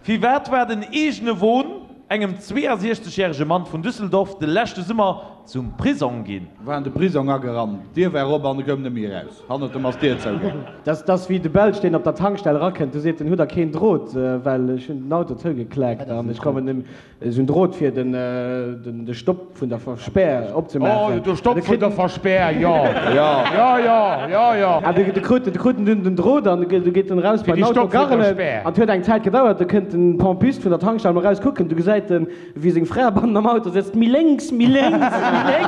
Firwat war den eegene Won engem 62 järege Mann vun Düsseldorf de leschte Summer zum Prisong ginn? War an de Prisong agerannt, d'Dier war op an e koum net méi eraus. Hannert em ass d'Dier zougaangen. Dat ass wéi de Belsch, deen op der Tankstell erakënnt, du seet en, Hutt der keen Drot, well ech hunn den Auto zougekleckt an ech kommen nem. Esou en Drot fir den de Stopp vun der Verspär opzemaachen. Oh, de Stopp vun der Verspär, jo. Jo, jo, jo, jo. An de krut de krut en dunn den Drot an du geet en eraus bei den Auto garrelen. An et huet eng Zäit gedauert, du kënnt den Pompist vun der Tankstell mol eraus kucken, du gesäit en wéi seng Fra bannen am Auto sëtzt, méi lénks, méi lénks, méi lénks.